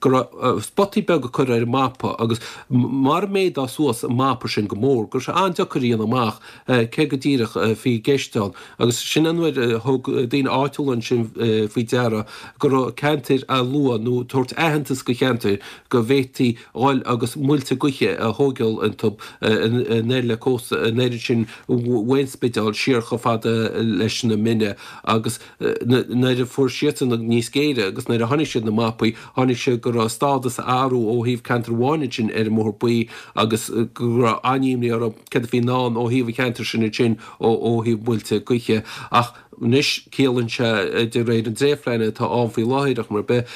go raibh spotaí beaga curtha ar an mapa agus mar a méadódh suas an mapa sin go mór go raibh sé an-deacair a dhéanamh amach cé go díreach a bhí i gceist ann agus sin an uair a thug daoine áitiúla ansin faoi deara go raibh ceantair á lua nó tabhairt aitheantas go cheantair go bhféadfaí dhul agus muilte gaoithe a thógáil iontu anoir le cósta, anoir ansin uain Spidéal siar chomh fada leis na Mine agus nuair a fuair siadsan níos géire agus nuair a chonaic siad na mapaí, chonaic siad go raibh stádas á athrú ó thaobh ceantar amháin ansin ar an mBóthar Buí agus go raibh an-imní orthu céard a bhí i ndán ó thaobh an cheantair sin ansin ó thaobh muilte gaoithe ach Anois, ciallaíonn sé, de réir an dréachtphlean atá ann faoi láthair, ar chuma ar bith,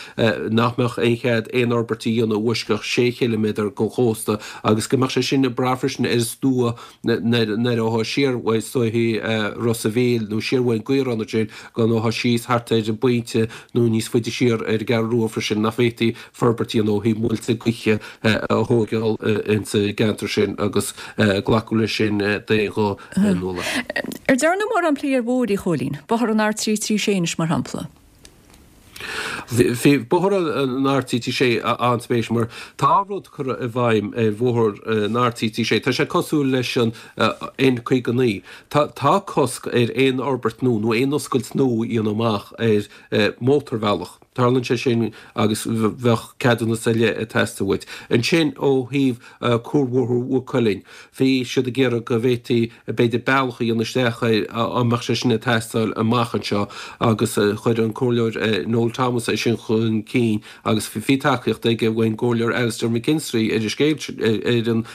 nach mbeadh aon chead aon fhorbairt a dhéanamh uaisceach sé chiliméadar den chósta agus go mbeadh sé sin ag brath freisin ar an stua nuair a ghabhfá siar uaidh is dóichí Ros a' Mhíl nó siar uaidh an gCaorán ansin go ngabhfá síos thart ar an bPointe nó níos faide siar ar an gCeathrú Rua freisin nach bhféadfaí forbairt a dhéanamh ó thaobh muilte gaoithe a thógáil insa gceantar sin agus glacadh leis sin d'aon ghuth. Nuala. Ar dearnadh mórán plé ar bhóithre, a Chóilín? Bóthar an R336 anois, mar shampla. Bhí bóthar an R336 an-spéisiúil mar tá rud curtha i bhfeidhm ar bhóthar an R336. Tá sé cosúil leis an N59. Tá cosc ar aon fhorbairt nua nó aon oscailt nua a dhéanamh amach ar mhótarbhealach. Tarlaíonn sé sin agus bheadh ceadúnas ar leith ag teastáil uait. Ansin ó thaobh Cuarbhóthar Mhaigh Cuilinn, bhí siad ag iarraidh go bhféadfaí b'fhéidir bealach a dhéanamh isteach air, an mbeadh sé sin ag teastáil amach anseo agus chuir an Comhairleoir Noel Thomas é sin chun cinn agus bhí tacaíocht aige ón gComhairleoir Alastair McKinstry ar an scéal,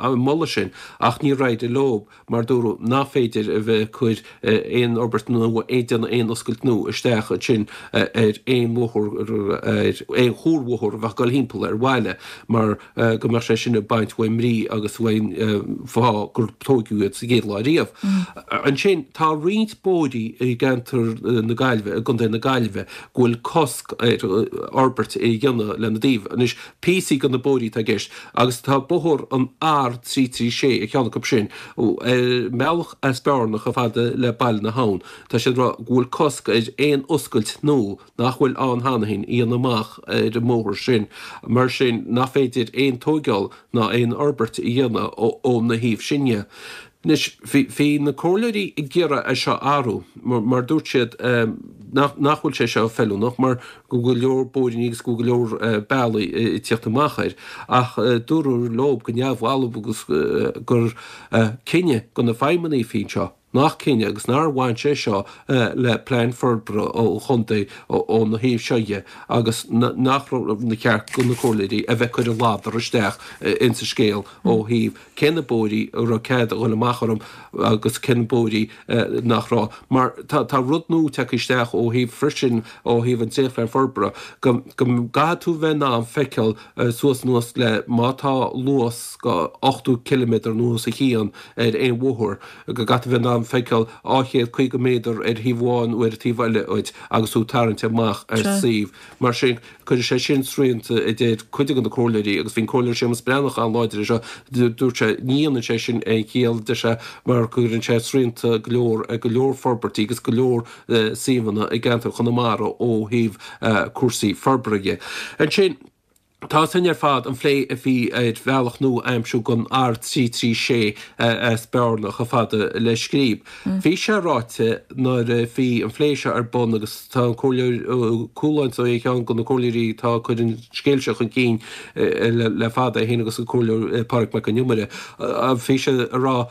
ar an moladh sin ach níor éirigh leo. mar dúradh nach féidir a bheith ag cur aon fhorbairt nua, ag déanamh aon oscailt nua isteach ansin ar aon bhóthar, ar aon chuarbhóthar a bheadh ag dul thimpeall ar bhaile mar go mbeadh sé sin ag baint uaidh mbrí agus uaidh an fáth gur tóigeadh iad sa gcéad lá riamh. Ansin tá roinnt bóithrí i gceantar na Gaillimhe, i gContae na Gaillimhe, go bhfuil cosc. cosc ar fhorbairt a dhéanamh lena dtaobh. Anois, píosaí de na bóithrí atá i gceist agus tá bóthar an R336 ar cheann acu sin, ar an mbealach as Bearna chomh fada le Baile na hAbhann. Tá siad ag rá go bhfuil cosc ar aon oscailt nua nach bhfuil ann cheana féin a dhéanamh amach ar an mbóthar sin, mar sin nach féidir aon tóigeáil ná aon fhorbairt a dhéanamh óna thaobh sin dhe. Anois, bhí na comhairleoirí ag iarraidh é seo a athrú mar dúirt siad nach bhfuil sé seo feiliúnach mar go bhfuil go leor bóithríní agus go bhfuil go leor bealaí ag tíocht amach air ach dúradh leo go neamhbhalbh agus gur cinneadh do na feidhmeannaigh a bhí anseo nach cinneadh agus nár bhain sé seo le plean forbartha an chontae óna thaobh seo dhe agus nach raibh na ceart do na comhairleoirí a bheith ag cur a ladar isteach insa scéal ó thaobh cé na bóithrí a raibh cead a dhul amach orthu agus cé na bóithrí nach raibh. Mar tá rud nua tagtha isteach ó thaobh freisin ó thaobh an dréachtphlean forbartha go gcaithfidh tú bheith in ann feiceáil suas anuas le má tá luas go 80 ciliméadar nó os a chionn ar aon bhóthar go gcaithfidh tú bheith in ann feiceáil 250 méadar ar thaobh amháin nó ar an taobh eile dhuit agus tú ag tarraingt amach ar suíomh. Mar sin, cuirfidh sé sin srianta, a deir cuid de na comhairleoirí, agus bhí an Comhairleoir Séamus Breathnach an-láidir air seo, dúirt sé, ní dhéanann sé sin aon chiall, deir sé, mar go gcuireann sé srianta go leor ar go leor forbairtí agus go leor suíomhanna i gceantar Chonamara ó thaobh cúrsaí forbartha dhe. Ansin, tá sin ar fad, an phlé a bhí ar bhealach nua a aimsiú don R336 as Bearna chomh fada le Scríb. Bhí sé ráite nuair a bhí an phlé seo ar bun agus tá an Comhairleoir Ó Cualáin ar cheann de na comhairleoirí atá ag cur an scéil seo chun cinn le fada, é féin agus an Comhairleoir Pádraig Mac Con Iomaire, bhí sé ag rá,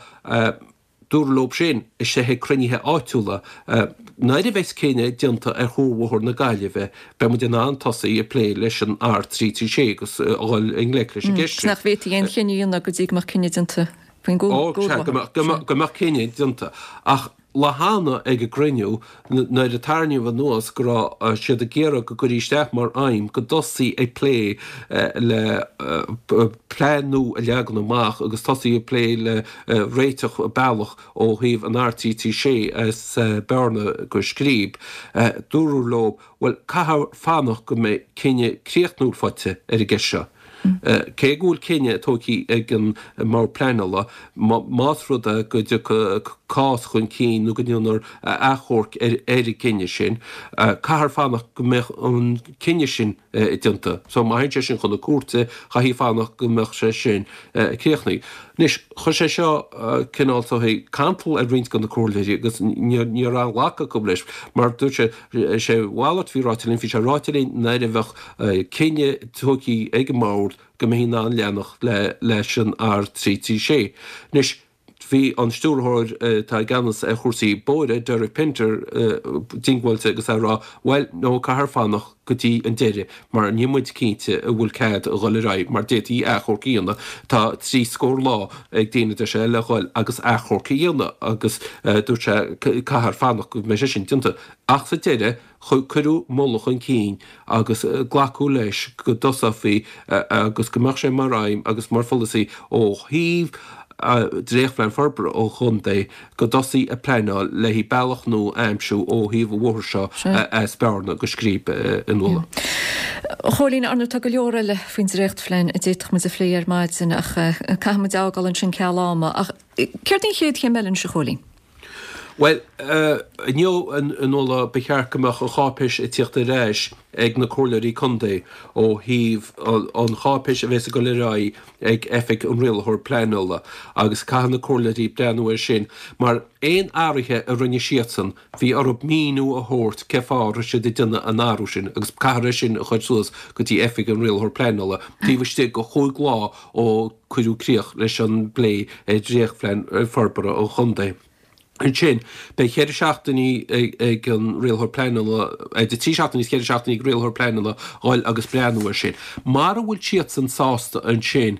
dúradh leo sin istigh ag cruinnithe áitiúla, nuair a bheas cinneadh déanta ar Chuarbhóthar na Gaillimhe, beidh muid in ann tosaí ag plé leis an R336 agus a dhul i ngleic leis an gceist sin. Nach bhféadfaí aon chinneadh a dhéanamh go dtí go mbeadh cinneadh déanta faoin gCuarbhóthar. Go mbeadh cinneadh déanta. Ach lá cheana ag an gcruinniú, nuair a tarraingíodh anuas go raibh siad ag iarraidh go gcuirfí isteach mar aidhm go dtosaí ag plé le plean nua a leagan amach agus tosaí ag plé le réiteach bealach ó thaobh an R336 as Bearna go Scríb, dúradh leo, bhuel, caithfear fanacht go mbeidh cinneadh críochnúil faighte ar an gceist seo. Cé go bhfuil cinneadh tógtha ag an mBord Pleanála, más rud é go dtiocfaidh cás chun cinn nó go ndéanfar achomharc ar an gcinneadh sin, caithfear fanacht go mbeadh an cinneadh sin déanta. So má théann sé sin chun na cúirte, chaithfí fanacht go mbeadh sé sin críochnaithe. Anois, chuir sé seo cineál sórt cantal ar roinnt de na comhairleoirí agus ní raibh aon ghlacadh acu leis mar dúirt sé, sé a mhalairt a bhí ráite linn, bhí sé ráite linn nuair a bheadh cinneadh tógtha ag an mbord go mbeifí in ann leanacht leis an R336. Anois, bhí an stiúrthóir atá i gceannas ar chúrsaí bóithre, Derek Pinter, diongbháilte agus é ag rá, bhuel, no, caithfear fanacht go dtí an deireadh mar níl muid cinnte an bhfuil cead a dhul ar aghaidh mar d'fhéadfaí achomharc a dhéanamh. Tá 30 scór lá ag daoine, deir sé, le dhul agus achomharc a dhéanamh agus dúirt sé caithfear fanacht go mbeidh sé sin déanta. Ach sa deireadh, cuireadh moladh chun cinn agus glacadh leis go dtosófaí agus go mbeadh sé mar aidhm agus mar pholasaí ó thaobh Dréachtphlean Forbartha an Chontae go dtosaí ag pleanáil le haghaidh bealach nua a aimsiú ó thaobh an bhóthair seo as Bearna go Scríb a Nuala. A Chóilín, ar ndóigh tá go leor eile faoin dréachtphlean a d'fhéadfadh muid a phlé ar maidin ach caithfidh muid a fhágáil ansin ceal ama. Ach céard í an chéad chéim eile anois a Chóilín? Bhuel, inniu, a Nuala, ba cheart go mbeadh an cháipéis ag tíocht ar ais ag na comhairleoirí contae ó thaobh an cháipéis a bheas ag dul ar aghaidh ag Oifig an Rialaitheoir Pleanála agus caithfidh na comhairleoirí breathnú air sin mar aon athruithe a rinne siadsan bhí orthu míniú a thabhairt cé fáth a raibh siad ag déanamh an athrú sin agus caithfear é sin a chur suas go dtí Oifig an Rialaitheoir Pleanála taobh istigh de chúig lá ó cuireadh críoch leis an bplé ar Dhréachtphlean Forbartha an Chontae. Ansin, beidh cheithre seachtainí ag an Rialaitheoir Pleanála, idir trí seachtainí is ceithre seachtainí ag Rialaitheoir Pleanála dhul agus breathnú air sin. Mara bhfuil siadsan sásta ansin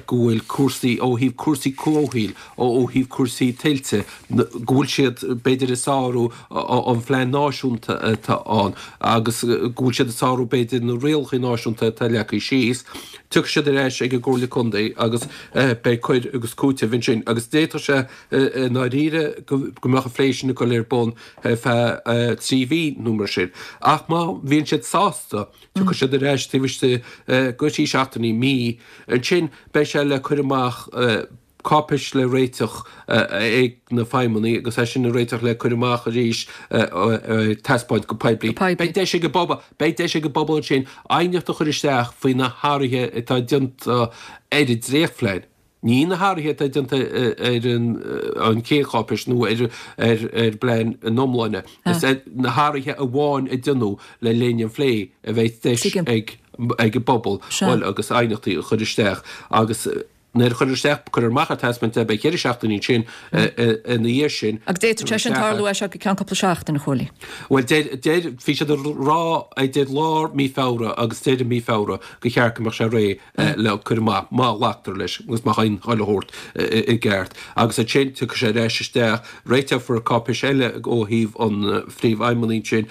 go bhfuil cúrsaí, ó thaobh cúrsaí comhshaoil, ó thaobh cúrsaí tuilte, go bhfuil siad b'fhéidir ag sárú an phlean náisiúnta atá ann agus go bhfuil siad ag sárú b'fhéidir na rialacha náisiúnta atá leagtha síos, Tiocfaidh siad ar ais ag an gComhairle Contae agus beidh cur agus cúiteamh ansin agus d'fhéadfadh sé i ndáiríre go. go mbeadh an phlé sin ag dul ar bun ar feadh 3 mhí nó mar sin. Ach má bhíonn siad sásta, tiocfaidh siad ar ais taobh istigh de thrí seachtainí, mí, ansin beidh sé le cur amach, cáipéis le réiteach ag na feidhmeannaigh agus é sin a réiteach le cur amach arís ar taispeáint go poiblí. Beidh deis ag an bpobal, beidh deis ag an bpobal ansin aighneacht a chur isteach faoi na hathruithe atá déanta ar an dréachtphlean. Ní na hathruithe atá déanta ar an chéad cháipéis nó ar an bplean ina iomláine. Is na hathruithe amháin a déanadh le linn an phlé a bheidh deis ag an bpobal bhuel agus aighneachtaí a chur isteach agus Nuair a chuirtear isteach, cuirfear amach ar taispeáint é, beidh cheithre seachtainí ansin ina dhiaidh sin. Agus d'fhéadfadh sé sin tarlú as seo go ceann cúpla seachtain, a Chóilín. Bhuel, deir, deir, bhí siad ag rá idir lár mí Feabhra agus deireadh mí Feabhra gur cheart go mbeadh sé réidh le cur amach, má ghlactar leis agus má thagann chuile shórt i gceart. Agus ansin tiocfaidh sé ar ais isteach, réiteofar cáipéis eile ó thaobh an phríomhfheidhmeannaigh ansin,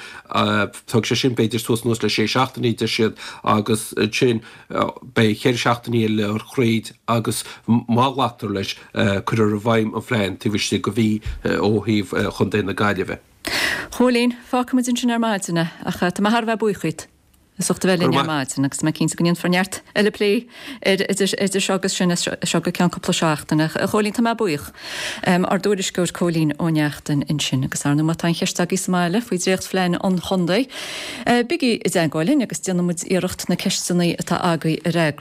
tógfaidh sé sin b'fhéidir suas anuas le sé seachtainí, deir siad, agus ansin, Beidh cheithre seachtainí eile le throid agus má ghlactar leis, cuirfear i bhfeidhm an phlean taobh istigh de mhí ó thaobh Chontae na Gaillimhe. Chóilín, fágfaimid ansin ar maidin é, ach tá mé thar a bheith buíoch díot as ucht a bheith linn ar maidin agus tá mé cinnte go ndéanfar neart eile plé air idir seo agus sin as seo go ceann cúpla seachtaine. A Chóilín, tá mé buíoch. Ár dtuairisceoir Cóilín Ó Neachtain ansin agus ar ndóigh má tá aon cheist agaibh sa mbaile faoi dhréachtphlean an chontae, bígí i dteagmháil linn agus déanfaidh muid iarracht na ceisteanna atá agaibh a fhreagairt.